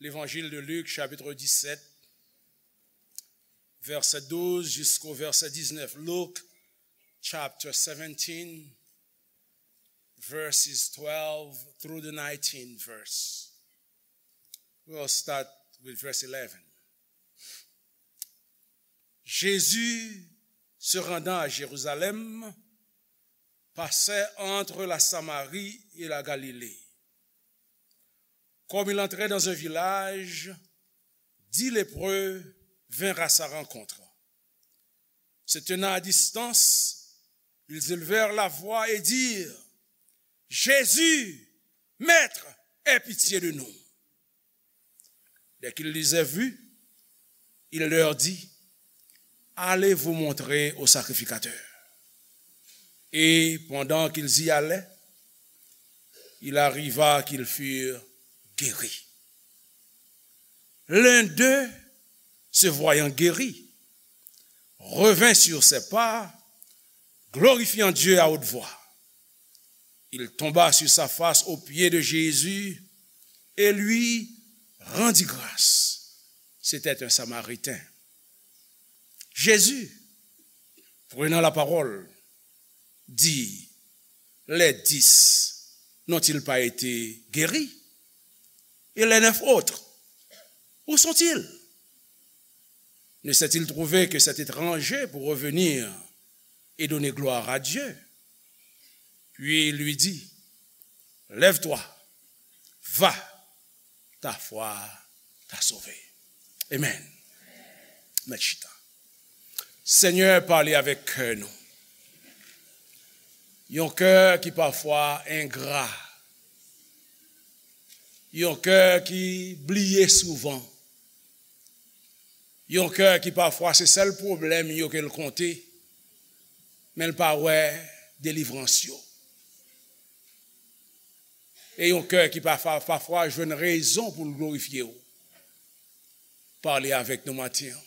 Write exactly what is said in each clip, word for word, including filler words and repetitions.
L'évangile de Luc, chapitre dix-sept, verset douze jusqu'au verset dix-neuf. Luke chapter seventeen, verses twelve through the nineteen verse. We'll start with verse eleven. Jésus, se rendant à Jérusalem, passait entre la Samarie et la Galilée. Comme il entrait dans un village, dix lépreux vinrent à sa rencontre. Se tenant à distance, ils élevèrent la voix et dirent : « Jésus, Maître, aie pitié de nous. » Dès qu'ils les eurent vus, il leur dit : « Allez vous montrer au sacrificateur. » Et pendant qu'ils y allaient, il arriva qu'ils furent guéris. L'un d'eux, se voyant guéri, revint sur ses pas, glorifiant Dieu à haute voix. Il tomba sur sa face aux pieds de Jésus et lui rendit grâce. C'était un Samaritain. Jésus, prenant la parole, dit : « Les dix n'ont-ils pas été guéris ? Et les neuf autres, où sont-ils ? Ne s'est-il trouvé que cet étranger pour revenir et donner gloire à Dieu ? » Puis il lui dit : « Lève-toi, va, ta foi t'a sauvé. » Amen. Mèt chita. Senyè, pale avèk kè nou. Yon kè ki pafwa engra. Yon kè ki bliye souvan. Yon kè ki pafwa se sèl pwoblèm yo ke l konte, men l pa wè delivrans yo. E yon kè ki pafwa, pafwa jwenn rezon pou l glorifye w. Pale avèk nou maten an.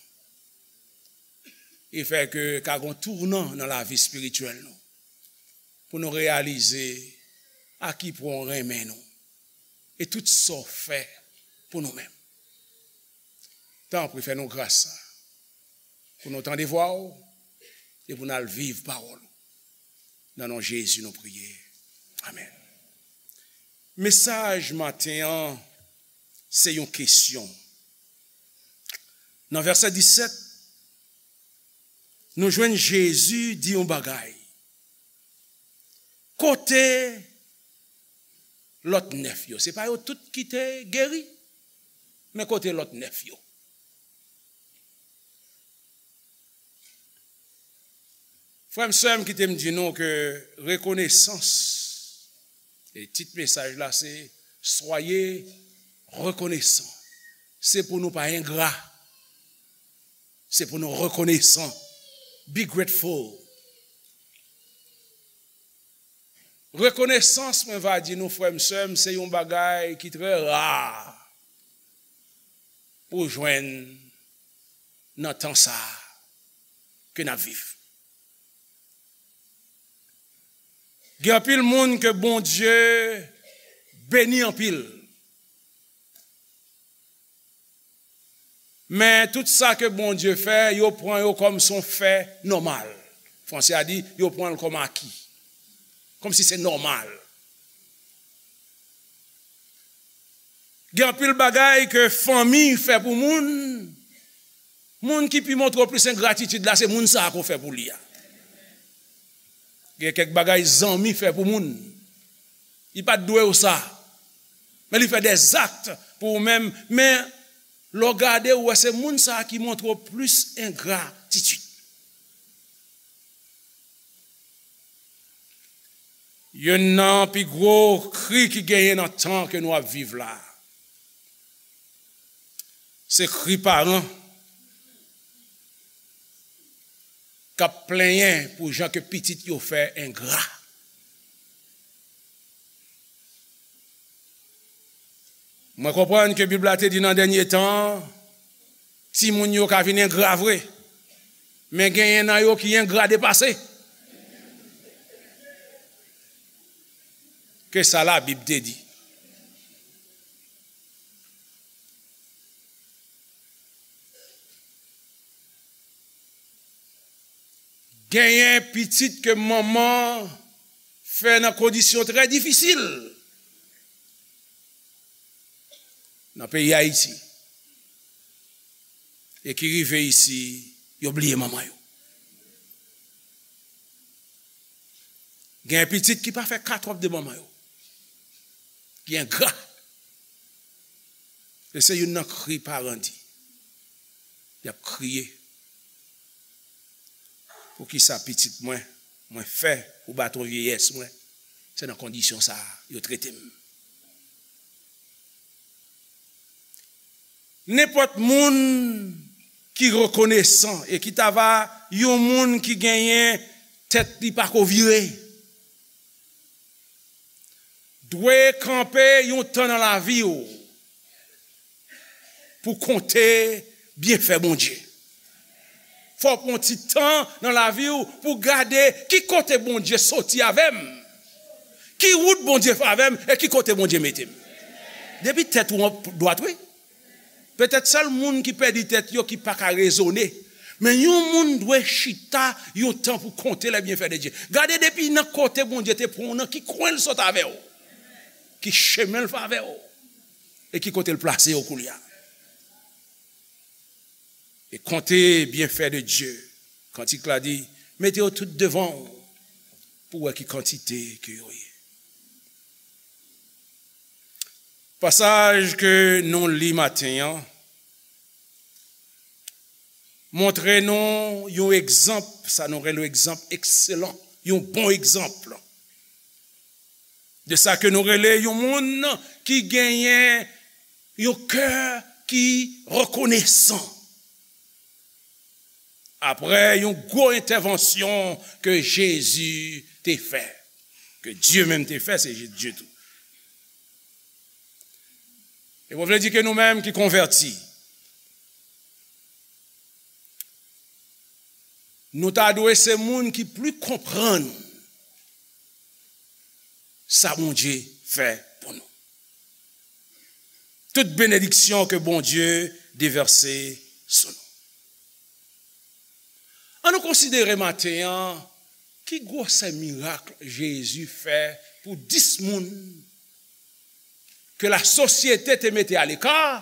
E fè ke ka gon tounan nan lavi espirityèl nou. Pou nou reyalize a ki pwen w renmen nou. E tout sa w fè pou nou menm. Tanpri, fè nou gras sa. Pou nou tande vwa w e pou n al viv pawòl ou. Nan non Jezi nou priye. Amèn. Mesaj maten an, se yon kesyon. Nan vèsè disèt, nou jwenn Jezi di yon bagay. Kote lòt nèf yo? Se pa yo tout ki te geri, men kote lòt nèf yo? Frè m, sè m, kite m di nou ke rekonesans, e tit mesaj la se Soyez reconnaissants. Se pou nou pa engra. Se pou nou rekonesan. Be grateful. Rekonesans, mwen va di nou, frè m, sè m, se yon bagay ki trè ra pou w jwenn nan tan sa a ke n ap viv. Gen anpil moun ke Bondye beni anpil. Men tout sa ke Bondye fè, yo pran yo kòm se yon fè nòmal. Franse a di, yo pran l kòm aki. Kòmsi se nòmal. Gen anpil bagay ke fanmi fè pou moun. Moun ki pi montre w plis engratitid la, se moun sa a ke w fè pou li a. Gen kèk bagay zanmi fè pou moun. Li pa t dwe w sa. Men li fè dèzakt pou ou menm. Men lè w gade, ou wè se moun sa a ki montre w plis engratitid. Youn nan pi gwo kri ki genyen nan tan ke nou ap viv la, se kri paran k ap plenyen pou jan ke pitit yo fè engra. Mwen konprann ke Bib la te di nan dènye tan, timoun yo ka vin engra vre, men genyen nan yo ki engra depase ke sa Labib te di. Genyen pitit ke manman fè nan kondisyon trè difisil nan peyi Ayiti e ki rive isi, yo bliye manman yo. Gen pitit ki pa fè katwòp de manman yo, ki engra. E se youn nan kri paran di. Y ap kriye. Poukisa pitit mwen, mwen fè pou baton vyeyès mwen, se nan kondisyon sa a yo trete m? Nenpòt moun ki rekonesan e ki ta va yon moun ki genyen tèt li pa ko vire, dwe kanpe yon tan nan lavi w pou konte byenfè Bondye. Fò w pran ti tan nan lavi w pou gade ki kote Bondye soti avè m, ki wout Bondye fè avè m e ki kote Bondye mete m. Depi tèt ou an dwat, wi. Petèt sèl moun ki pèdi tèt yo ki pa ka rezone. Men yon moun dwe chita yon tan pou konte les bienfaits de Dieu. Gade depi nan kote Bondye te pran w, nan ki kwen l sot avè w, ki chemen l fè avè w, e ki kote l plase w koulye a. E konte bienfaits de Dieu. Kantik la di, mete yo tout devan w pou wè ki kantite ke yo ye. Pasaj ke nou li maten an montre nou yon egzanp, sa nou rele yon egzanp ekselan, yon bon egzanp de sa ke nou rele yon moun ki genyen yon kè ki rekonesan. Apre yon gwo entèvansyon ke Jezi te fè, ke Dye menm te fè, se Dye tou. E mwen vle di ke nou menm ki konvèti, nou ta dwe se moun ki pli konprann sa Bondye fè pou nou. Tout benediksyon ke Bondye devèse sou nou. An nou konsidere maten an ki gwosè mirak Jezi fè pou dis moun ke lasosyete te mete aleka,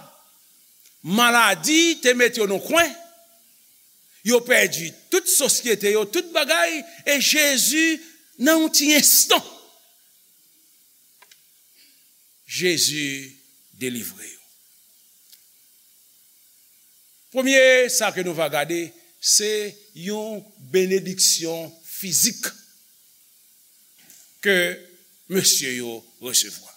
maladi te mete yo nan kwen, yo pèdi tout sosyete yo, tout bagay, e Jezi, nan yon ti enstan, Jezi delivre yo. Premye sa ke nou va gade, se yon benediksyon fizik ke mesye yo resevwa.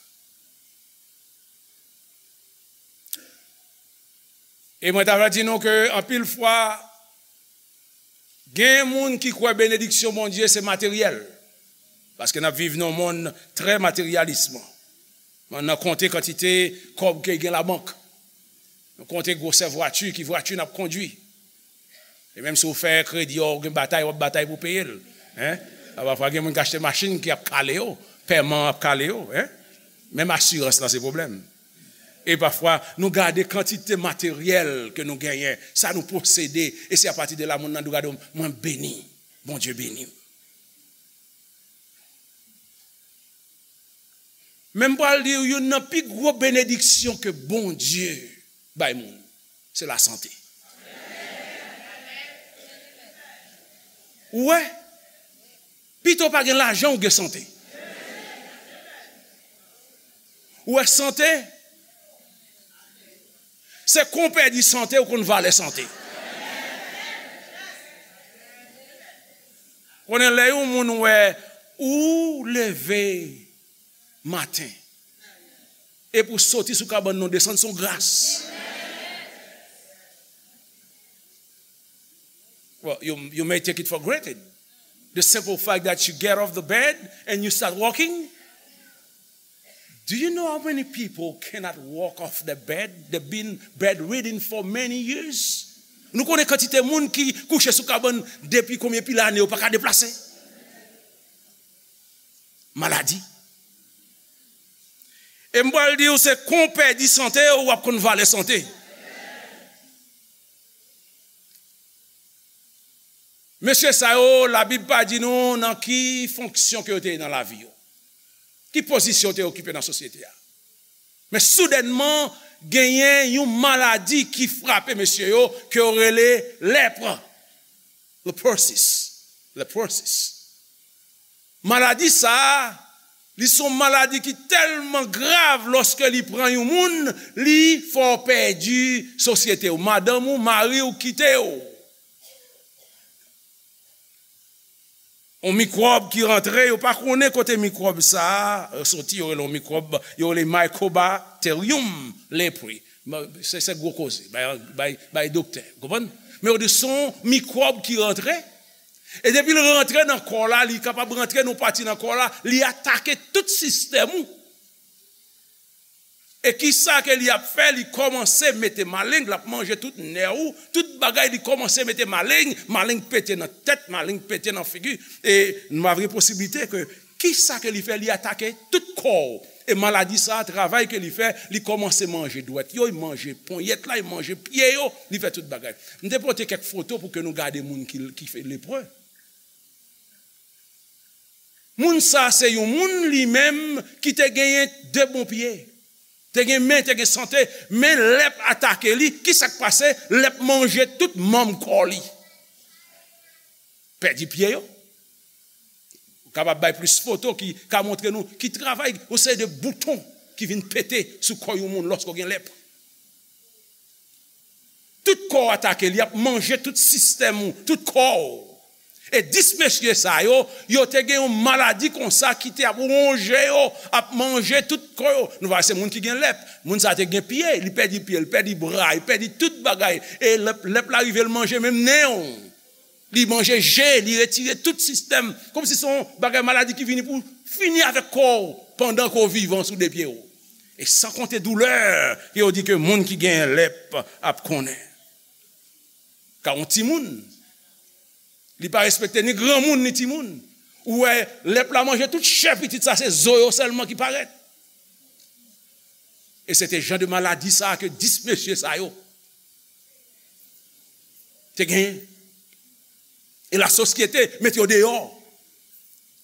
E mwen ta va di nou ke anpil fwa, gen moun ki kwè benediksyon Bondye se materyèl. Paske n ap viv nan yon monn trè materyalis. Mwen nan konte kantite kòb ke gen labank. Nou konte gwosè vwati, ki vwati n ap kondwi. E menm si w fè kredi, w gen batay, w ap batay pou peye l. Hein? A, pafwa gen moun ki achte machin ki ap kale yo, pèman ap kale yo. Hein? Menm asirans lan se pwoblèm. E pafwa, nou gade kantite materyèl ke nou genyen, sa nou posede, e se apati de la moun nan di w, gade w, mwen beni, Bondye beni m. Men m pral di w, youn nan pi gwo benediksyon ke Bondye bay moun, se lasante. Ou wè, pito w pa gen lajan, ou gen sante. Ou wè, sante, se kon w pèdi sante, ou konn valè sante. Konnen lè yon moun wè ou leve maten, epi w soti sou kabann nan, w desann, se yon gras. Well, you, you may take it for granted. The simple fact that you get off the bed and you start walking. Do you know how many people cannot walk off the bed? They've been bedridden for many years. Nou konnen kantite moun ki kouche sou kabann depi konbyen pil ane, yo pa ka deplase. Maladi. E m pral di w, se kon w pèdi sante w, w ap konn valè sante. Mesye sa yo, Labib pa di nou nan ki fonksyon ke yo te ye nan lavi yo, ki pozisyon yo te okipe nan sosyete a. Men soudènman, genyen yon maladi ki frape mesye yo, ke yo rele lèpre. Leprosis. Leprosis. Maladi sa a, li se yon maladi ki tèlman grav, lòske li pran yon moun, li fè w pèdi sosyete w. Madanm ou, mari w kite w. Yon mikwòb ki rantre, yo pa konnen kote mikwòb sa a soti, yo rele yon mikwòb, yo rele Mycobacterium leprae. Se, se gwo koze, bay, bay, bay doktè, konprann? Men yo di se yon mikwòb ki rantre, e depi l rantre nan kò w la, li kapab rantre nan yon pati nan kò w la, li atake tout sistèm ou. E kisa ke li ap fè? Li kòmanse mete maleng, l ap manje tout nè ou, tout bagay, li kòmanse mete maleng, maleng pete nan tèt, maleng pete nan figi. E nou pa vle posiblite ke kisa ke li fè? Li atake tout kò w. E maladi sa a, travay ke li fè, li kòmanse manje dwèt yo, li manje ponyèt la, li manje pye yo, li fè tout bagay. M te pote kèk foto pou ke nou gade moun ki, ki fè lepre. Moun sa se yon moun li menm ki te genyen de bon pye. Te gen men, te gen sante, men lèp atake li. Kisa k pase? Lèp manje tout manm kò li. Pèdi pye yo. Ou kapab bay plis foto ki ka montre nou ki travay, yon seri de bouton ki vin pete sou kò yon moun lòske w gen lèp. Tout kò w atake, li ap manje tout sistèm ou, tout kò w. E dis mesye sa yo, yo te gen yon maladi konsa ki te ap wonje yo, ap manje tout kò yo. Nou va wè se moun ki gen lèp. Moun sa te gen pye, li pèdi pye, li pèdi bra, li pèdi tout bagay. E lèp, lèp la rive, l manje menm nen w. Li manje je, li retire tout sistèm. Kòmsi se yon bagay maladi ki vini pou fini avèk kò w pandan ke w vivan sou de pye w. E san konte doulè ke yo di ke moun ki gen lèp ap konnen. Ka yon timoun, li pa respekte ni granmoun ni timoun. Ou wè, lèp la manje tout chè pitit sa, se zo yo sèlman ki parèt. E se te jan de maladi sa ke dis mesye sa yo te genyen. E lasosyete mete yo deyò.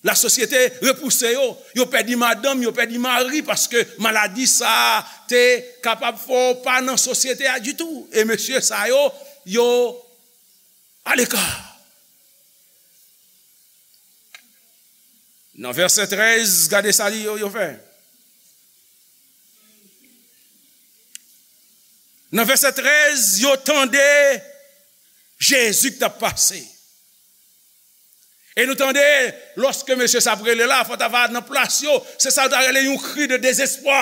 Lasosyete repouse yo. Yo pèdi madanm, yo pèdi mari, paske maladi sa a te kapab fè w pa nan sosyete a ditou. E mesye sa yo, yo aleka. Nan vèsè trèz, gade sa li, yo, yo fè. Nan vèsè trèz, yo tande Jezi ki t ap pase. E nou tande, lòske mesye sa ap rele la, fò ta va nan plas yo, se sa yo ta rele yon kri de dezespwa.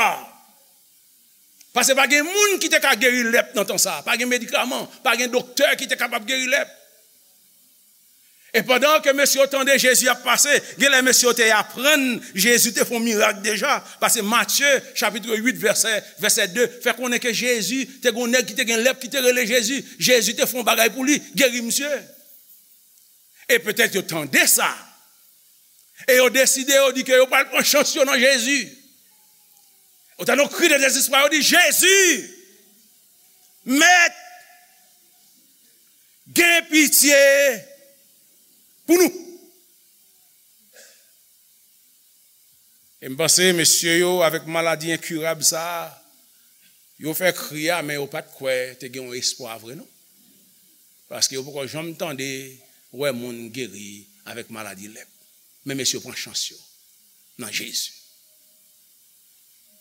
Paske pa gen moun ki te ka geri lèp nan tan sa a. Pa gen medikaman, pa gen doktè ki te kapab geri lèp. E pandan ke mesye yo tande Jezi ap pase, genlè mesye yo te aprann Jezi te fè yon mirak deja. Paske Matye, chapit uit, vèsè, vèsè de, fè konnen ke Jezi, te gen yon nèg ki te gen lèp ki te rele Jezi. Jezi te fè yon bagay pou li, geri misye. E petèt yo tande sa. E yo deside, yo di ke yo pral pran chans yo nan Jezi. Yo tande yon kri de dezespwa, yo di, "Jezi, Mèt, gen pitye pou nou." E m panse mesye yo avèk maladi enkirab sa a, yo fè kri a, men yo pa t kwè te gen yon espwa vre non. Paske yo poko janm tande, wè moun geri avèk maladi lèp. Men mesye yo pran chans yo nan Jezi.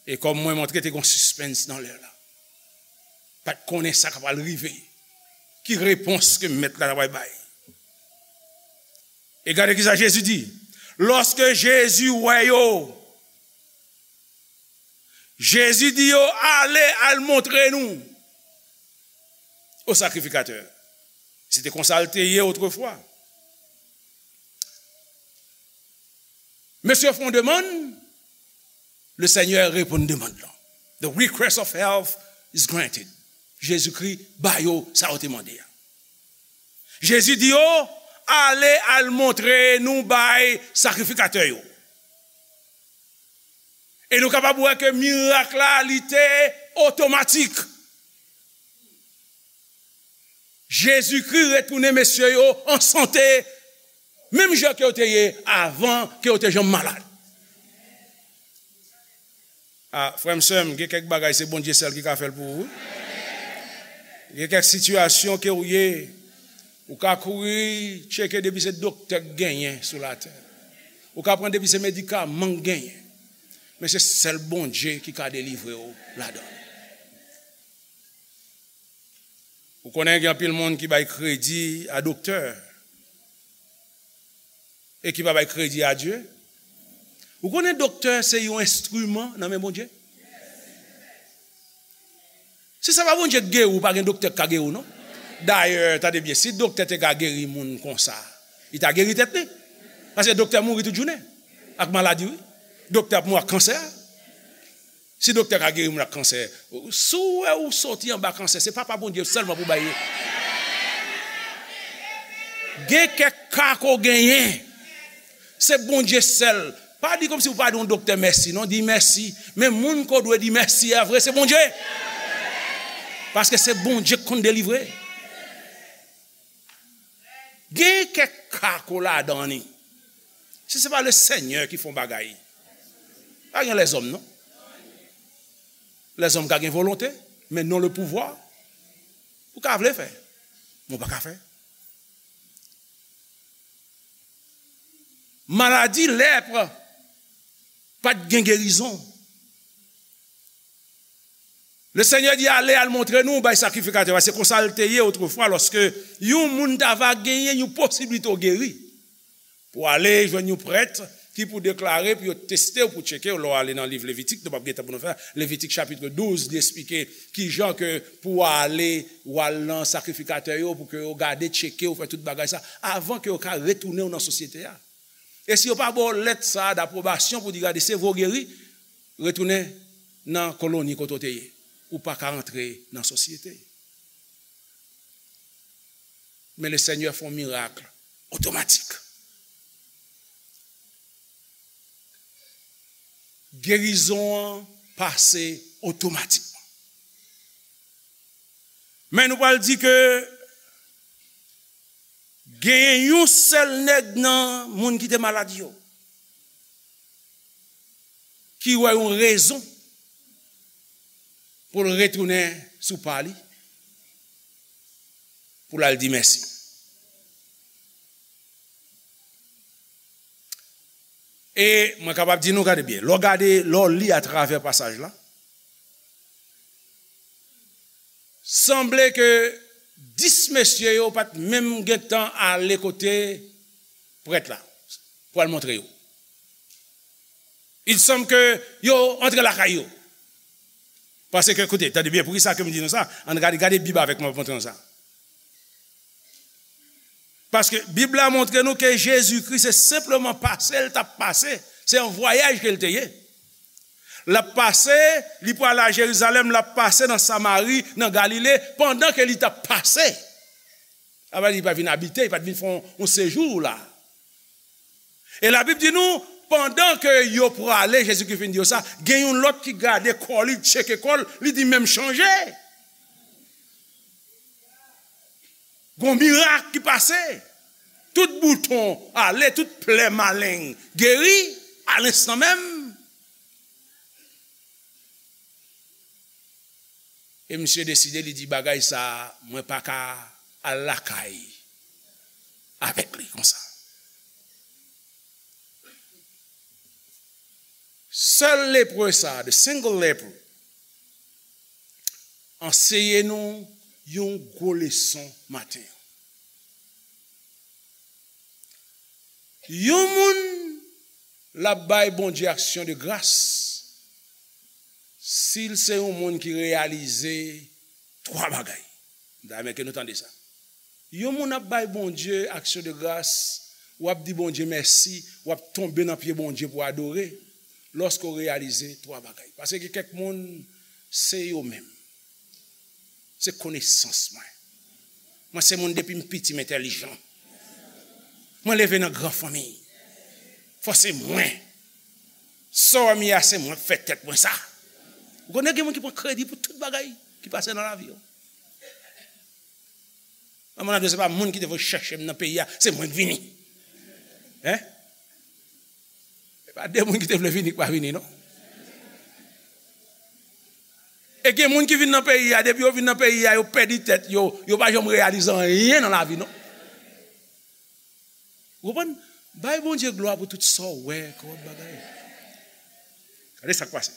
E kòm mwen montre te gen yon sispens nan lè la. Pa t konnen sa k ap pral rive. Ki repons ke mèt la ta pral bay? E gade kisa Jezi di. Lòske Jezi wè yo, Jezi di yo, "Ale, al montre nou o sakrifikatè." Se te konsa l te ye otrefwa. Mesye fè yon demann, le Senyè reponn demann lan. The request of help is granted. Jezikri ba yo sa yo te mande a. Jezi di yo, "Ale al montre nou bay sakrifikatè yo." E nou kapab wè ke mirak la, li te otomatik. Jezikri retounen mesye yo an sante, menm jan ke yo te ye avan ke yo te janm malad. A, frè m, sè m, gen kèk bagay se Bondye sèl ki ka fè l pou ou, wi. Gen kèk sitiyasyon ke w ye, ou ka kouri tcheke depi se doktè k genyen sou latè. Ou ka pran depi se medikaman k genyen. Men se sèl Bondye ki ka delivre w ladan l. Ou konnen gen anpil moun ki bay kredi a doktè e ki pa bay kredi a Dye. Ou konnen doktè se yon enstriman nan men Bondye? Si se pa Bondye k geri w, pa gen doktè k ka geri w, non. Dayè, tande byen, si doktè te ka geri moun konsa, li ta geri tèt li. Paske doktè mouri tout jounen ak maladi, wi. Doktè ap mouri ak kansè. Si doktè ka geri moun ak kansè, si w wè ou soti anba kansè, se papa Bondye sèlman pou bay li. Gen kèk ka ke w genyen, se Bondye sèl. Pa di kòmsi w pa di yon doktè mèsi, non, di mèsi. Men moun ke w dwe di mèsi a vre, se Bondye. Paske se Bondye ki konn delivre. Gen kèk ka ke w ladan li. Si se pa Lesenyè ki fè yon bagay, pa gen lèzòm, non. Lèzòm ka gen volonte, men non le pouvwa. Ou ka vle fè, men w pa ka fè. Maladi lèp pa t gen gerizon. Lesenyè di, "Ale, al montre nou bay sakrifikatè a." Se konsa l te ye otrefwa, lòske yon moun ta va genyen yon posiblite w geri. Pou w ale jwenn yon prèt ki pou deklare, pou yo teste w, pou tcheke w. Lè w ale nan liv Levitik, nou p ap gen tan pou nou fè. Levitik chapit douz, li eksplike kijan ke pou w ale, w al nan sakrifikatè yo, pou ke yo gade, tcheke w, fè tout bagay sa, avan ke yo ka retounen w nan sosyete a. E si yo pa ba w lèt sa a dapwobasyon pou di, "Gade, se vre w geri," retounen nan koloni kote w te ye. Ou pa ka rantre nan sosyete. Men Lesenyè fè yon mirak otomatik. Gerizon an pase otomatikman. Men nou pral di ke genyen yon sèl nèg nan moun ki te malad yo ki wè yon rezon pou l retounen sou pa li, pou l al di mèsi. E mwen kapab di nou, gade byen, lè w gade, lè w li atravè pasaj la, sanble ke dis mesye yo pa t menm gentan ale kote prèt la pou al montre yo. Il semble ke yo antre lakay yo. Paske, koute, tande byen, poukisa ke m di nou sa? Ann gade, gade Bib avèk mwen, pou montre nou sa. Paske Bib la montre nou ke Jezikri se senpleman pase l t ap pase. Se yon vwayaj ke l te ye. L ap pase, li pral a Jerizalèm, l ap pase nan Samari, nan Galile, pandan ke li t ap pase. Sa vle di, li pa vin abite, li pa t vin fè yon, yon sejou la. E Labib di nou, pandan ke yo prale, Jezikri fin di yo sa, gen yon lòt ki gade kò li, tcheke kò l, li di, "Men m chanje." Gon mirak ki pase. Tout bouton ale, tout plè maleng geri, a lenstan menm. E misye deside, li di, "Bagay sa, mwen pa ka al lakay avèk li konsa." Sèl lepre sa, the single leper, anseye nou yon gwo leson maten an. Yon moun, l ap bay Bondye aksyon de gras si l se yon moun ki reyalize twa bagay. M ta renmen ke nou tande sa. Yon moun ap bay Bondye aksyon de gras, w ap di Bondye mèsi, w ap tonbe nan pye Bondye pou adore, lòske w reyalize twa bagay. Paske gen kèk moun, se yo menm. Se konesans mwen. Mwen se moun depi m piti m entèlijan. Mwen leve nan gran fanmi. Fò se mwen. Sa w wè m ye a, se mwen k fè tèt mwen sa. Ou konnen gen moun ki pran kredi pou tout bagay ki pase nan lavi yo. Manman nan di, se pa moun ki te voye chèche m nan peyi a, se mwen k vini. Hein? Se pa de moun ki te vle vini k pa vini, non. E gen moun ki vin nan peyi a, depi yo vin nan peyi a, yo pèdi tèt yo, yo pa janm reyalize anyen nan lavi, non. Ou konprann? Bay Bondye glwa pou tout sa w wè kòm bagay. Gade sa k pase.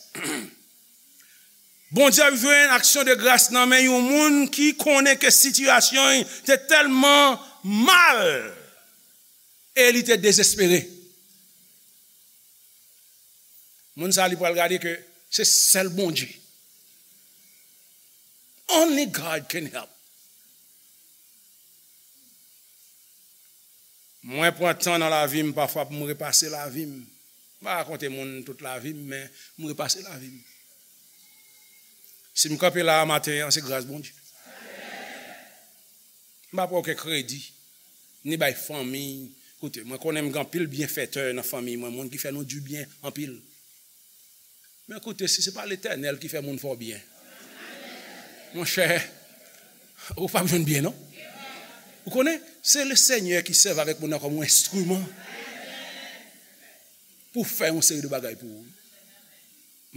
Bondye ap jwenn aksyon de gras nan men yon moun ki konnen ke sitiyasyon li te tèlman mal e li te dezespere. Moun sa a, li pral gade ke se sèl Bondye. Only God can help. Mwen pran tan nan lavi m pafwa pou m repase lavi m. M pa rakonte moun tout lavi m, men m repase lavi m. Si m kanpe la a maten an, se gras Bondye. M pa pran okenn kredi, ni bay fanmi. Koute, mwen konnen m gen anpil byenfetè nan fanmi mwen, moun ki fè nou dibyen anpil. Men koute, si se pa Letènèl ki fè moun fè w byen, monchè, ou p ap jwenn byen, non. Ou konnen, se Lesenyè ki sèvi avèk moun nan kòm yon enstriman pou fè yon seri de bagay pou ou.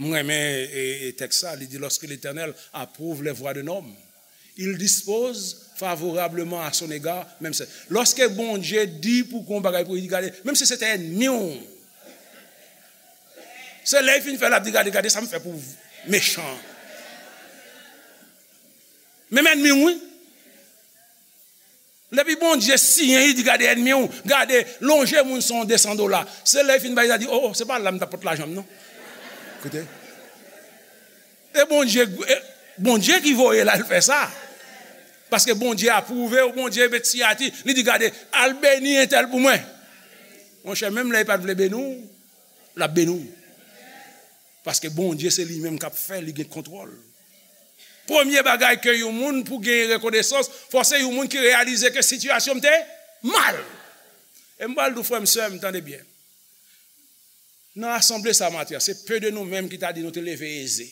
Mwen renmen e, e, tèks sa, li di, lorsque l'Éternel approuve les voies d'un homme, il dispose favorablement à son égard, menm se, lòske Bondye di pou gon bagay pou li, gade, menm si se te ènmi w, se lè l fin fè l ap di, gade, gade sa m fè pou mechan. Menm ènmi w, wi. Depi Bondye siyen, li di, gade ènmi w, gade, lonje moun sa yon de san dola. Se lè l fin bay, li di, o, o, se pa la m t ap pot lajan m, non. Koute. E Bondye, e Bondye ki voye l al fè sa. Paske Bondye apwouve w, Bondye met siyati, li di, gade, al beni entèl pou mwen. Monchè, menm lè li pa t vle beni w, l ap beni w. Paske Bondye se li menm k ap fè, li gen kontwòl. Premye bagay ke yon moun pou genyen rekonesans, fò se yon moun ki reyalize ke sitiyasyon m te mal. E m pral di w, frè m, sè m, tande byen. Nan asanble sa maten an, se pe de nou menm ki ta di nou te leve eze.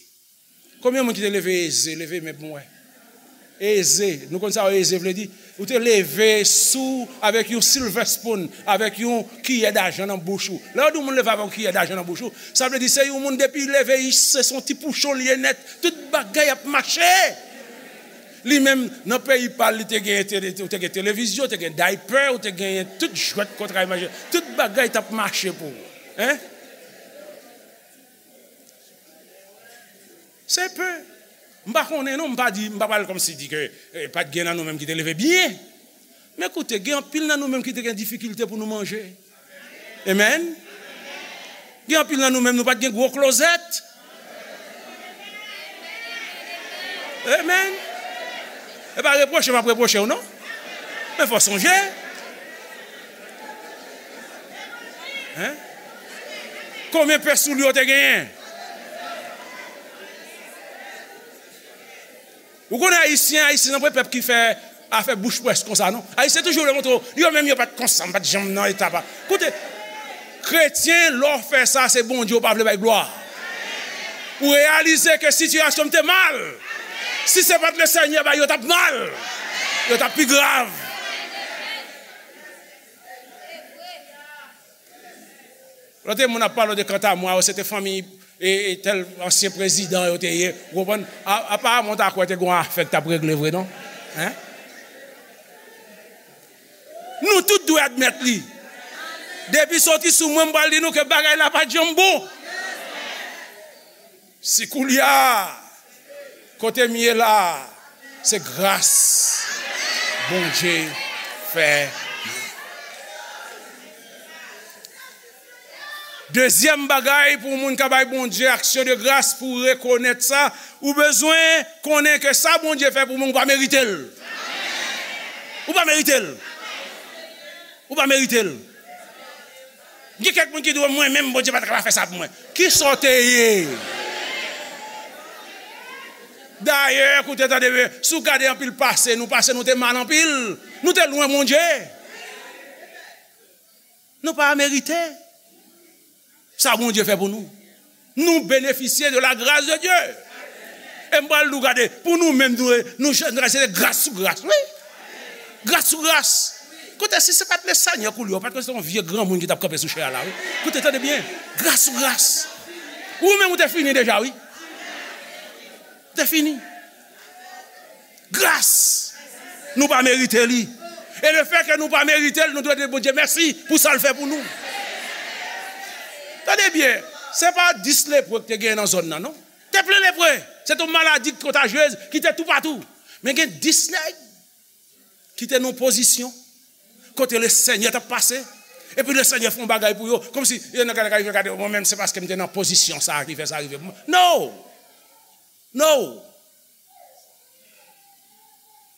Konbyen moun ki te leve eze, leve men pou mwen? Eze. Nou konn sa eze vle di? Ou te leve sou avèk yon silver spoon, avèk yon kiyè dajan nan bouch ou. Lè yo di yon moun leve avèk yon kiyè dajan nan bouch ou, sa vle di se yon moun depi li leve, se se yon ti pouchon li ye nèt. Tout bagay ap mache. Li menm, nan peyi pa l, li te gen tele-, ou te gen televizyon, ou te gen daypè, ou te gen tout jwèt kontray manje. Tout bagay t ap mache pou ou. Hein? Se pe. M pa konnen non, m pa di, m pa pral kòmsi di ke, eh, pa t gen nan nou menm ki te leve byen. Men koute, gen anpil nan nou menm ki te gen difikilte pou nou manje. Amen. Gen anpil nan nou menm, nou pa t gen gwo klozèt. Amen. E pa repwoche m ap repwoche w non. Men fò sonje. Hein? Konbyen pè soulye w te genyen? Ou konnen Ayisyen, Ayisyen se yon pèp ki fè afè bouch pwès konsa, non? Ayisyen toujou vle montre w, yo menm yo pa t konsa, m pa t janm nan eta pa. Koute, kretyen, lè w fè sa, se Bondye w pa vle bay glwa. Ou reyalize ke sitiyasyon m te mal. Si se pa t Lesenyè, ba yo t ap mal. Yo t ap pi grav. Lòt moun ap pale de kanta mwa, se te fanmi e, e tèl ansyen prezidan yo te ye. Ou konprann? A, aparaman, w ta kwè te gen yon afè k t ap regle vre, non? Hein? Nou tout dwe admèt li. Depi soti sou mwen, m pral di nou ke bagay la pa t janm bon. Si koulye a, kote m ye la, se gras Bondye fè m. Dezyèm bagay, pou moun ka bay Bondye aksyon de gras, pou rekonèt sa, ou bezwen konnen ke sa Bondye fè pou moun, ou pa merite l. Ou pa merite l. Ou pa merite l. Gen kèk moun ki di, mwen menm, Bondye pa t ka pa fè sa pou mwen. Kisa w te ye? Dayè, koute, tande byen, si w gade anpil pase nou, pase nou te mal anpil. Nou te lwen Bondye. Nou pa merite sa Bondye fè pou nou. Nou benefisye de la grâce de Dieu. E m pral di w, gade, pou nou menm, nou, nou, nou se gras sou gras, wi. Gras sou gras. Kote, si se pa t Lesenyè k oule w, pa t konn se yon vye granmoun ki t ap kanpe sou chè a la, wi. Kote, tande byen. Gras sou gras. Ou menm, ou te fini deja, wi. Ou te fini. Gras. Nou pa merite li. E lefètke nou pa merite l, nou dwe di Bondye mèsi pou sa l fè pou nou. Tande byen, se pa dis lepre ki te genyen nan zòn nan, non. Te plen lepre. Se te yon maladi kontajyez ki te toupatou. Men gen dis nèg ki te nan pozisyon kote Lesenyè t ap pase. Epi Lesenyè fè yon bagay pou yo. Kòmsi, yo nan gade, gade, gade, mwen menm, se paske m te nan pozisyon sa a ki fè sa rive pou mwen. No! No!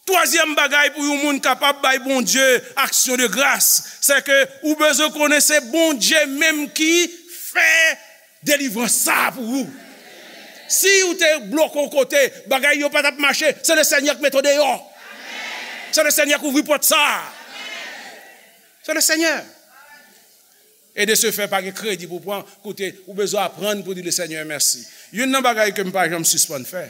Twazyèm bagay pou yon moun kapab bay Bondye aksyon de gras, se ke ou bezwen konnen se Bondye menm ki fè delivrans sa a pou ou. Si ou te bloke yon kote, bagay yo pa t ap mache, se Lesenyè k mete w deyò. Se Lesenyè k ouvri pòt sa a. Se Lesenyè. E de se fè, pa gen kredi pou pran. Koute, ou bezwen aprann pou di Lesenyè mèsi. Youn nan bagay ke m pa janm sispann fè,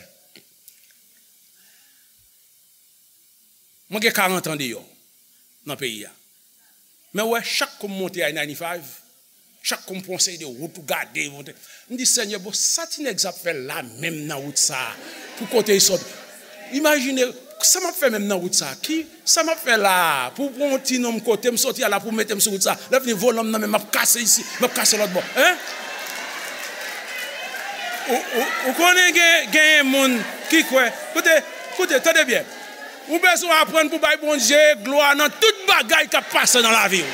mwen gen karant an deyò nan peyi a. Men w wè, chak kou m monte I ninety-five, chak kou m pran yon seri de wout ou gade, monte, m di, Senyè, bon, sa ti nèg sa ap fè la menm nan wout sa a? Pou kote l sot? Imajine, sa m ap fè menm nan wout sa a? Ki, sa m ap fè la a? Pou pran yon ti nonm kote m soti a la, pou mete m sou wout sa a? Lè fini, volan m nan men, m ap kase isi, m ap kase lòt bò. Hein? Ou, ou, ou konnen gen, genyen moun ki kwè. Koute, koute, tande byen. Ou bezwen aprann pou bay Bondye glwa nan tout bagay k ap pase nan lavi w.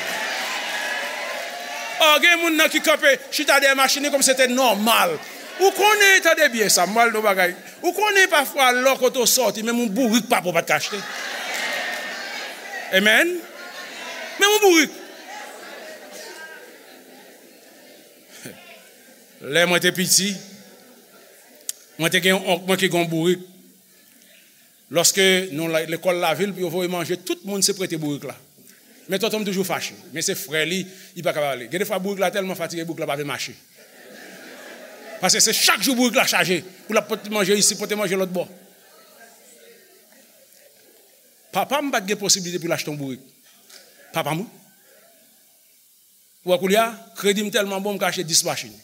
Ò, gen moun nan ki kanpe, chita dèyè machin li kòmsi se te nòmal. Ou konnen, tande byen sa, m pral di w bagay. Ou konnen pafwa lò kote w sòti, menm yon bourik pa pou w pa t ka achte. Amen. Menm yon bourik. Lè mwen te piti, mwen te gen yon onk mwen ki gen yon bourik. Lòske nou la, lekòl lavil, pou yo voye manje, tout moun se prete bourik la. Men tonton m toujou fache. Men se frè li, li pa ka pale. Gen de fwa bourik la tèlman fatige, bourik la pa vle mache. Paske se chak jou bourik la chaje. Pou l ap pote manje isi, pote manje lòt bò. Papa m pa t gen posiblite pou l achte yon bourik. Papa m, wi. Ou wè koulye a, kredi m tèlman bon, m ka achte dis machin.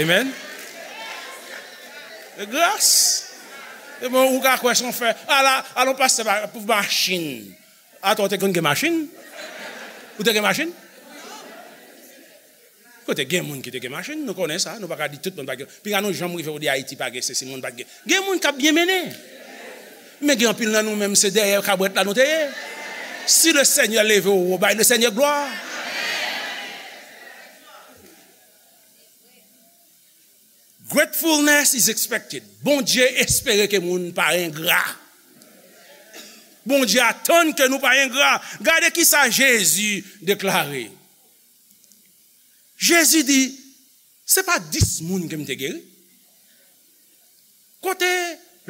Amen. E gras. E bon, ou ka kwè se yon fè. Ala, ala yon pastè pa, pou machin. Atò, ou te konn gen machin? Ou te gen machin? Kote gen moun ki te gen machin, nou konnen sa, nou pa ka di tout moun pa gen. Pinga nou janm rive ou di Ayiti pa gen sesi, moun pa gen. Gen moun k ap byen mennen. Men gen anpil nan nou menm, se dèyè kabwèt la nou te ye. Si Lesenyè leve w wo, bay Lesenyè glwa. Gratefulness is expected. Bondye espere ke moun pa engra. Bondye atann ke nou pa engra. Gade ki sa Jezi deklare. Jezi di, se pa dis moun ke m te geri. Kote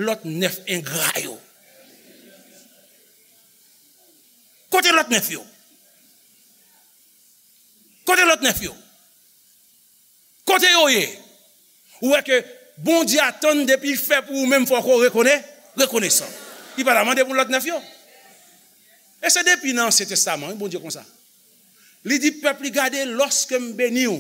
lòt nèf engra yo? Kote lòt nèf yo? Kote lòt nèf yo? Kote yo ye? Ou wè ke Bondye atann depi fè pou ou menm fòk ou rekone-, rekonesan. Li pa ta mande pou lòt nèf yo. E se depi nan Ansyen Testaman, wi, Bondye konsa. Li di pèp li, gade, lòske m beni w,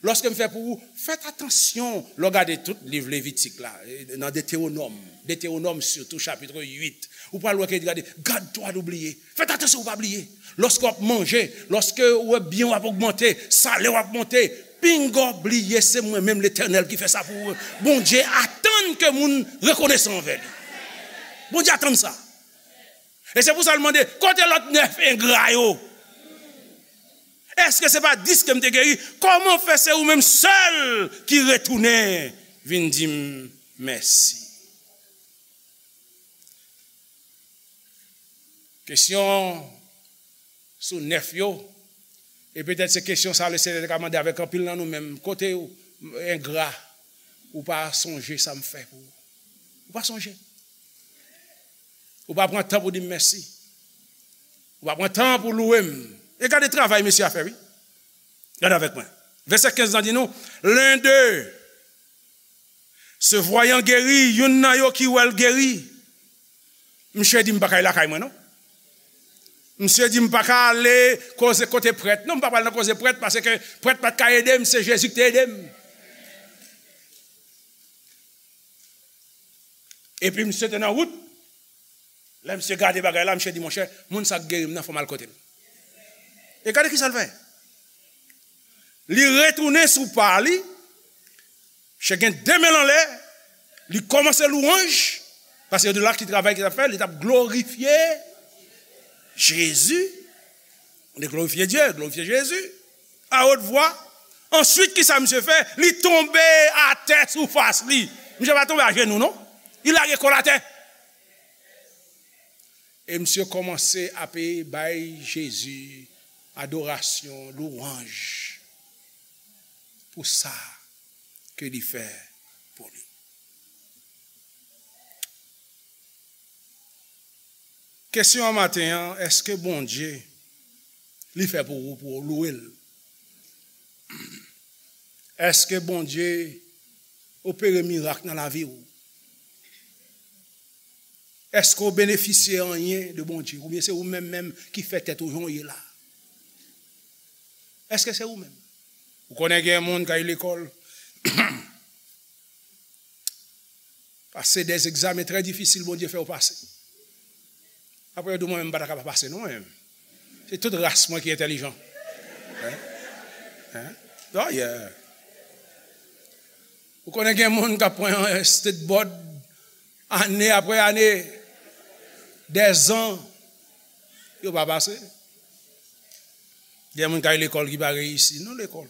lòske m fè pou ou, fèt atansyon lè w gade tout liv Levitik la, e, nan Detewonòm, Detewonòm sitou, chapit uit, ou pral wè ke li gade, garde-toi d'oublier. Fèt atansyon pou w pa bliye. Lòske w ap manje, lòske ou wè byen w ap ogmante, salè w ap monte, pinga w bliye se mwen menm Letènèl ki fè sa pou ou. Bondye atann ke moun rekonesan anvè li. Bondye atann sa. E se pou sa l mande, kote lòt nèf engra yo? Èske se pa dis ke m te geri? Kòman fè se ou menm sèl ki retounen vin di m mèsi? Kesyon sou nèf yo, e petèt se kesyon sa Lesenyè te ka mande avèk anpil nan nou menm. Kote ou engra, ou pa sonje sa m fè pou ou. Ou pa sonje. Ou pa pran tan pou di m mèsi. Ou pa pran tan pou louwe m. E gade travay mesye a fè, wi. Gade avèk mwen. Vèsè kenz lan di nou, l'un d'eux, se voyant guéri, youn nan yo ki wè l geri, Misye di m pa ka al lakay mwen non. Misye di m pa ka ale koze kote prèt. Non, m pa pral nan koze prèt paske prèt pa t ka ede m, se Jezi ki te ede m. Epi misye te nan wout. Lè misye gade bagay la, misye di, monchè, moun sa k geri m nan, fò m al kote l. E gade ki sa l fè. Li retounen sou pa li, misye gen de men l anlè, li kòmanse lwanj, paske yo di l ki travay ki t ap fè, li t ap glorifye Jezi. Li glorifye Dye, glorifye Jezi, a wot vwa. Answit, ki sa misye fè? Li tonbe atè sou fas li. Misye pa tonbe ajenou, non. Li lage kò l atè. E misye kòmanse ape bay Jezi adorasyon, lwanj pou sa ke li fè pou li. Kesyon an maten an, èske Bondye li fè pou ou, pou ou louwe l? Èske Bondye opere mirak nan lavi w? Èske w benefisye anyen de Bondye? Oubyen se ou menm menm ki fè tèt ou jan w ye la? Èske se ou menm? Ou konnen gen moun k al lekòl, pase de egzamen trè difisil Bondye fè yo pase. Apre yo di mwen menm m pa ta kapab pase non mwen menm. Se tout ras mwen ki entèlijan. Hein? Hein? Oh yeah. Ou konnen gen moun k ap pran state board ane apre ane, dèzan, yo pa pase. Gen moun k al lekòl ki pa reyisi nan lekòl.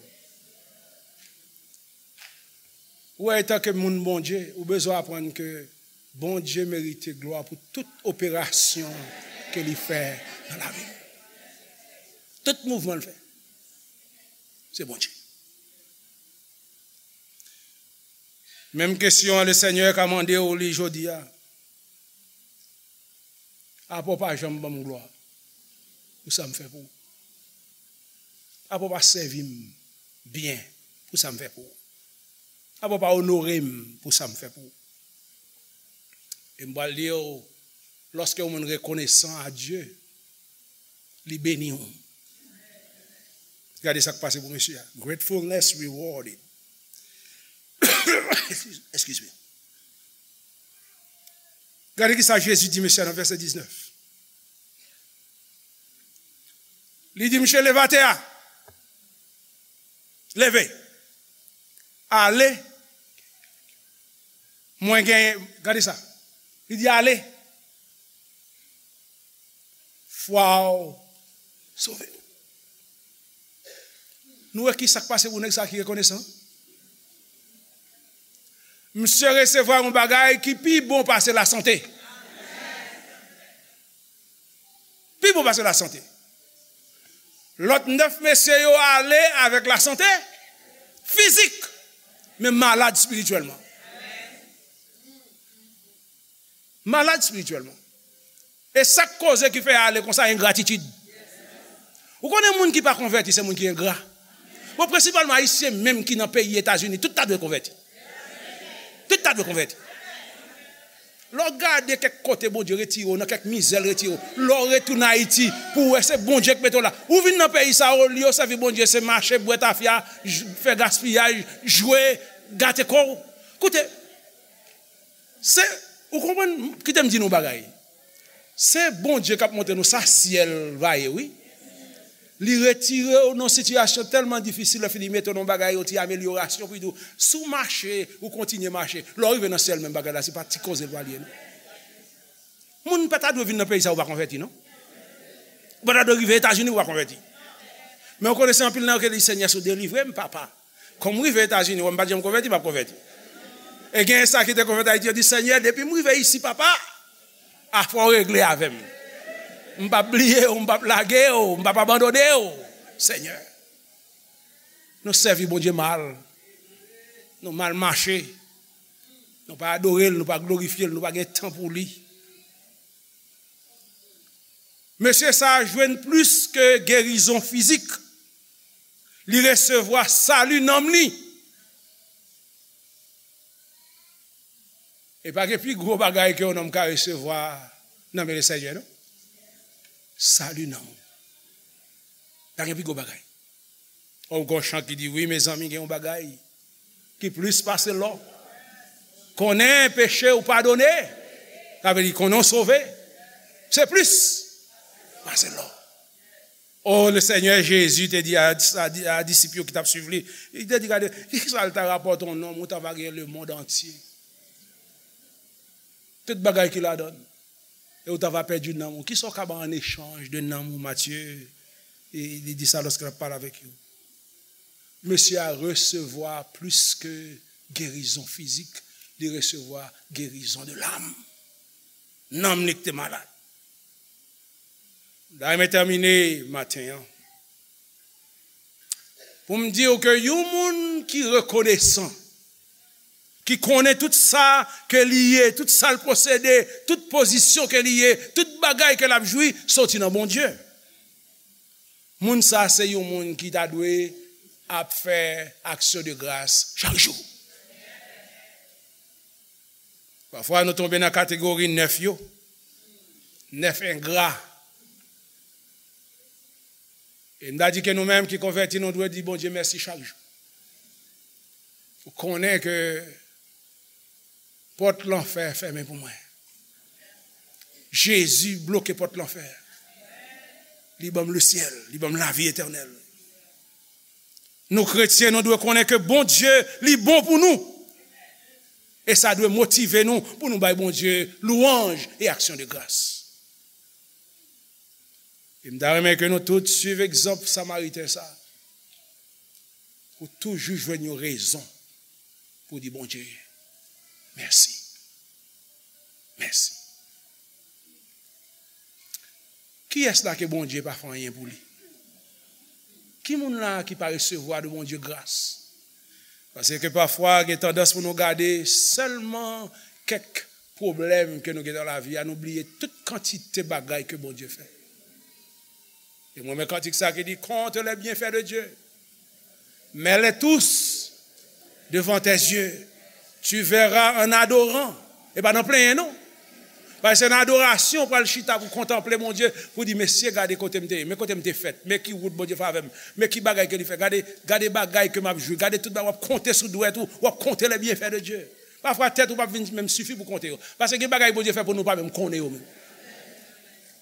Ou wè, etanke moun Bondye, ou bezwen aprann ke Bondye merite glwa pou tout operasyon ke li fè nan lavi l. Tout mouvman l fè, se Bondye. Menm kesyon an, Lesenyè ka mande w li jodi a. Apa w pa janm ban m glwa pou sa m fè pou ou? Apa w pa sèvi m byen pou sa m fè pou ou? Apa w pa onore m pou sa m fè pou ou? E m pral di w, lòske yon moun rekonesan a Dye, li beni w. Gade sa k pase pou mesye a. Gratefulness rewarded. Excuse me. Gade ki sa Jezi di mesye a nan vèsè diznèf. Li di, "Mesye, leve atè a. Leve. Ale. Mwen genyen." Gade sa. Li di, "Ale. Fwa w sove w." Nou wè ki sa k pase pou nèg sa ki rekonesan? Misye resevwa yon bagay ki pi bon pase lasante. Pi bon pase lasante. Lòt nèf mesye yo ale avèk lasante fizik, men malad espirityèlman. Malad espirityèlman. E sa k koze ki fè ale konsa, engratitid. Ou konnen moun ki pa konvèti, se moun ki engra. Bon, prensipalman, Ayisyen menm ki nan peyi Etazini, tout ta dwe konvèti. Tout ta dwe konvèti. Lè w gade kèk kote Bondye retire w, nan kèk mizè l retire w, lè w retounen Ayiti, pou w wè se Bondye k mete w la. Ou vin nan peyi sa, olye w sèvi Bondye, se mache, bwè tafya, j-, fè gaspiyaj, jwe, gate kò w. Koute, se, ou konprann, kite m di nou yon bagay. Se Bondye k ap montre nou sa syèl va ye, wi. Li retire w nan sitiyasyon tèlman difisil, lè fini mete w nan bagay, yon ti amelyorasyon, pou li di w, si w mache, ou kontinye mache, lè w rive nan syèl, menm bagay la, se pa ti koze l pral ye, non. Moun pa ta dwe vin nan peyi sa, ou pa konvèti, non. Ou pa ta dwe rive Etazini, ou pa konvèti. Men ou konnen se anpil nan yo ki di, "Senyè, si w delivre m, papa. Kòm m rive Etazini, wè m pa t janm konvèti, m ap konvèti." E gen sa ki te konvèti Ayiti, yo di, "Senyè, depi m rive isi, papa, afè w regle avè m. M p ap bliye w, m p ap lage w, m p ap abandone w, Senyè." Nou sèvi Bondye mal. Nou mal mache. Nou pa adore l, nou pa glorifye l, nou pa gen tan pou li. Mesye sa a jwenn plis ke gerizon fizik. Li resevwa sali nanm li. E pa gen pi gwo bagay ke yon nonm ka resevwa Nan men Lesenyè, non? Sali nanm ou. Pa gen pi gwo bagay. Ou gon chan ki di, wi, mezanmi, gen yon bagay ki plis pase lò. Konnen peche ou padone, sa vle di konnen w sove. Se plis pase lò. O, le Senyè Jezi te di a, a, a disip yo ki t ap swiv li, li te di, gade, ki sa l ta rapòte yon nonm ou ta va gen lemonn antye? Tout bagay ki ladan l. E ou ta va pèdi nanm ou. Kisa w ka ba an echanj de nanm ou, Matye? E li di sa lòske l ap pale avèk yo. Mesye a resevwa plis ke gerizon fizik, li resevwa gerizon de lam. Nanm li ki te malad. M ta renmen tèmine maten an pou m di w ke yon moun ki rekonesan, ki konnen tout sa ke li ye, tout sa l posede, tout pozisyon ke li ye, tout bagay ke l ap jwi, soti nan Bondye. Moun sa se yon moun ki ta dwe ap fè aksyon de gras chak jou. Pafwa, nou tonbe nan kategori nèf yo, nèf engra. E m ta di ke nou menm ki konvèti, nou dwe di Bondye mèsi chak jou. Ou konnen ke pòt lanfè fèmen pou mwen. Jezi bloke pòt lanfè. Li ban m lesyèl, li ban m lavi etènèl. Nou kretyen, nou dwe konnen ke Bondye, li bon pou nou. E sa dwe motive nou pou nou bay Bondye lwanj e aksyon de gras. E m ta renmen ke nou tout swiv egzanp Samariten sa a. Ou toujou jwenn yon rezon pou di Bondye mèsi. Mèsi. Kiyès la ke Bondye pa fè anyen pou li? Ki moun la ki pa resevwa de Bondye gras? Paske pafwa, gen tandans pou nou gade sèlman kèk pwoblèm ke nou gen nan lavi a, nou bliye tout kantite bagay ke Bondye fè. E mwen, men kantik sa ki di, compte les bienfaits de Dieu. Mets-les tous devant tes yeux. Tu verras en adorant. E pa nan plenyen, non. Paske se nan adorasyon w pral chita pou kontanple Bondye, pou di, mesye, gade kote m te ye, men kote m te fèt, men ki wout Bondye fè avè m, men ki bagay ke li fè, gade, gade bagay ke m ap jwi, gade tout bagay, w ap konte sou dwèt ou, w ap konte les bienfaits de Dieu. Pafwa, tèt ou p ap vin menm sifi pou konte yo. Paske gen bagay Bondye fè pou nou pa menm konnen yo menm.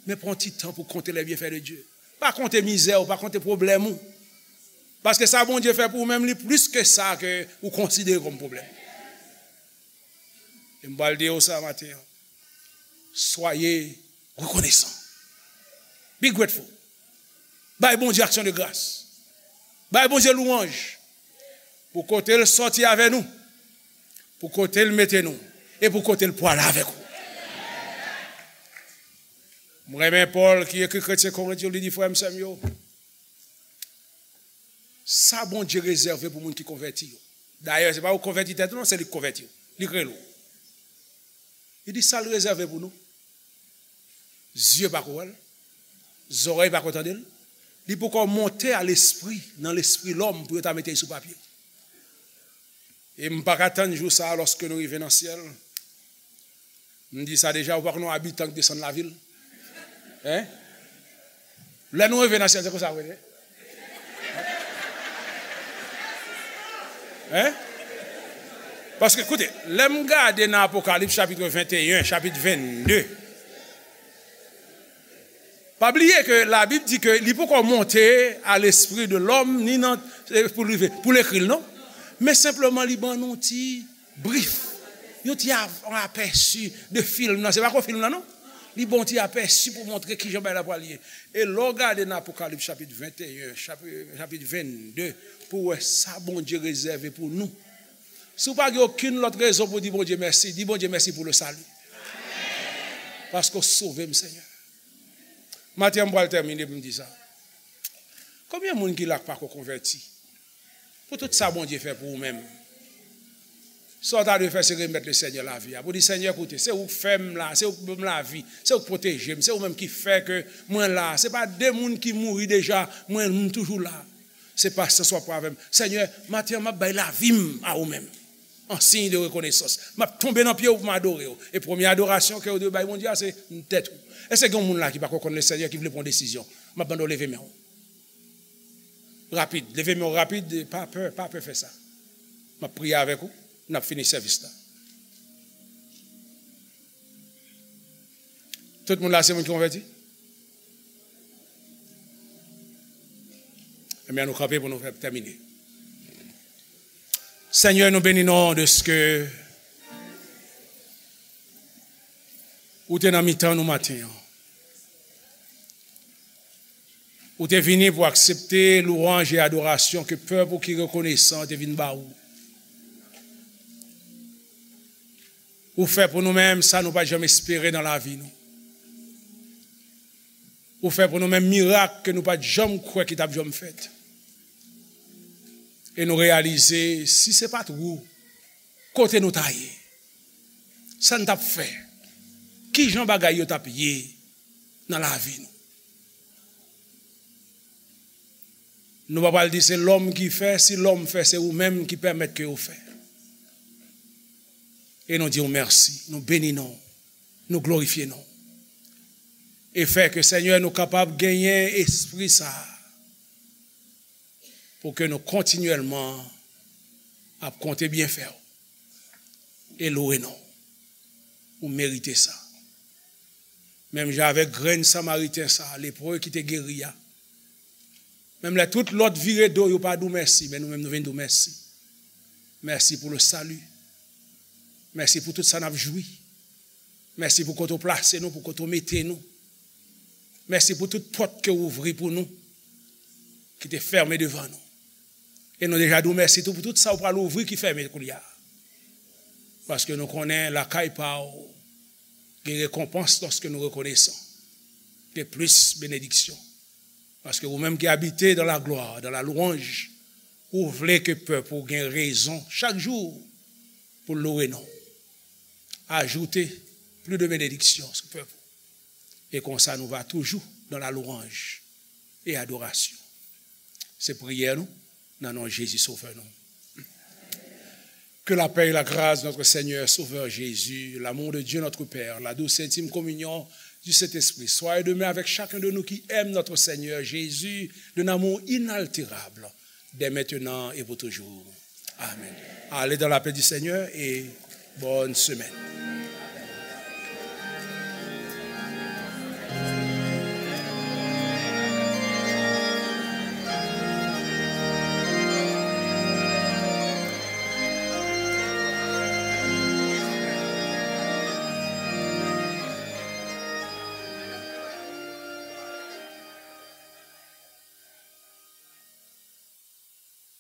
Men pran ti tan pou konte les bienfaits de Dieu. Pa konte mizè w, pa konte pwoblèm ou. Paske sa Bondye fè pou ou menm, li plis ke sa ke ou konsidere kòm pwoblèm. E m pral di w sa maten an. Soyez reconnaissants. Be grateful. Bay Bondye aksyon de gras. Bay Bondye lwanj. Pou kote l sòti avè nou. Pou kote l mete nou. E pou kote l pwale avèk ou. M renmen Pòl ki ekri kretyen Korent yo, li di, frè m, sè m yo, sa Bondye rezève pou moun ki konvèti yo. Dayè, se pa ou konvèti tèt ou, non, se li ki konvèti w. Li k rele w. Li di sa l rezève pou nou. Zye pa ko wè l, zòrèy pa ko tande l, li poko monte a lespri, nan lespri lòm pou yo ta mete l sou papye. E m pa ka tann jou sa a lòske nou rive nan syèl. M di sa deja, ou pa konn yon abitan k desann lavil? Hein? Lè nou rive nan syèl, se konsa w rele? Hein? Paske, koute, lè m gade nan Apokalips chapit venteyen, chapit vennde, pa bliye ke Labib di ke li poko monte a lespri de lòm, ni nan, eh, pou l rive, pou l ekri l, non? Men senpleman, li ban nou ti brif, yon ti av-, apèsi de fim nan. Se pa ko fim nan, non? Li bon ti apèsi pou montre kijan bagay la pral ye. E lè w gade nan Apokalips chapit venteyen, chapi-, chapit vennde, pou w wè sa Bondye rezève pou nou. Si w pa gen okenn lòt rezon pou di Bondye mèsi, di Bondye mèsi pou le salut. Paske w sove m, Senyè. Maten an, m pral tèmine pou m di sa. Konbyen moun ki la k pa ko konvèti? Pou tout sa Bondye fè pou ou menm. Sa w ta dwe fè, se remèt Lesenyè lavi a. Pou di, Senyè, koute, se ou k fè m la, se ou k ban m lavi, se ou k pwoteje m, se ou menm ki fè ke mwen la. Se pa de moun ki mouri deja, mwen, m toujou la. Se pasyans w ap pran avè m. Senyè, maten an, m ap bay lavi m a ou menm. An siy de rekonesans. M ap tonbe nan pye w pou m adore w. E premye adorasyon ke w dwe bay Bondye a, se tèt ou. Èske gen yon moun la ki pako konn Lesenyè, ki vle pran yon desizyon? M ap mande w leve men w. Rapid. Leve men w rapid. Pa pè, pa pè fè sa. M ap priye avèk ou. N ap fini sèvis la. Tout moun la se moun ki konvèti? Ebyen, nou kanpe pou nou fè tèmine. Senyè, nou beni non w dèske ou te nan mitan nou maten an. Ou te vini pou aksepte lwanj e adorasyon ke pèp ou ki rekonesan te vin ba ou. Ou fè pou nou menm sa nou pa t janm espere nan lavi nou. Ou fè pou nou menm mirak ke nou pa t janm kwè ki t ap janm fèt. E nou reyalize, si se pa t ou, kote nou ta ye? Sa n t ap fè? Kijan bagay yo t ap ye nan lavi nou? Nou pa pral di se lòm ki fè, si lòm fè, se ou menm ki pèmèt ke yo fè. E nou di w mèsi, nou beni non w, nou glorifye non w. E fè ke, Senyè, nou kapab genyen espri sa a, pou ke nou kontinyèlman ap konte byenfè w e lwe non w. Ou merite sa. Menm jan avèk grenn Samariten sa a, lepre ki te geri a, menm lè tout lòt vire do, yo pa di w mèsi, men nou menm nou vin di w mèsi. Mèsi pou le salut. Mèsi pou tout sa n ap jwi. Mèsi pou kote w plase nou, pou kote w mete nou. Mèsi pou tout pòt ke w ouvri pou nou, ki te fèmen devan nou. E nou deja di w mèsi tou pou tout sa w pral ouvri ki fèmen koulye a. Paske nou konnen lakay pa w gen rekonpans lòske nou rekonesan. Gen plis benediksyon. Paske ou menm ki abite dans la gloire, dans la louange, ou vle ke pèp ou gen rezon chak jou pou lwe non w. Ajoute plus de bénédictions sou pèp ou. E konsa nou va toujou dans la louange et adoration. Se priyè nou, nan non Jezi Sovè nou. Que la paix et la grâce de notre Seigneur Sauveur Jésus, l'amour de Dieu notre Père, la douce et intime communion du Saint-Esprit soit et demeure avec chacun de nous qui aime notre Seigneur Jésus d'un amour inaltérable, dès maintenant et pour toujours. Amen. Allez dans la paix du Seigneur et bonne semaine.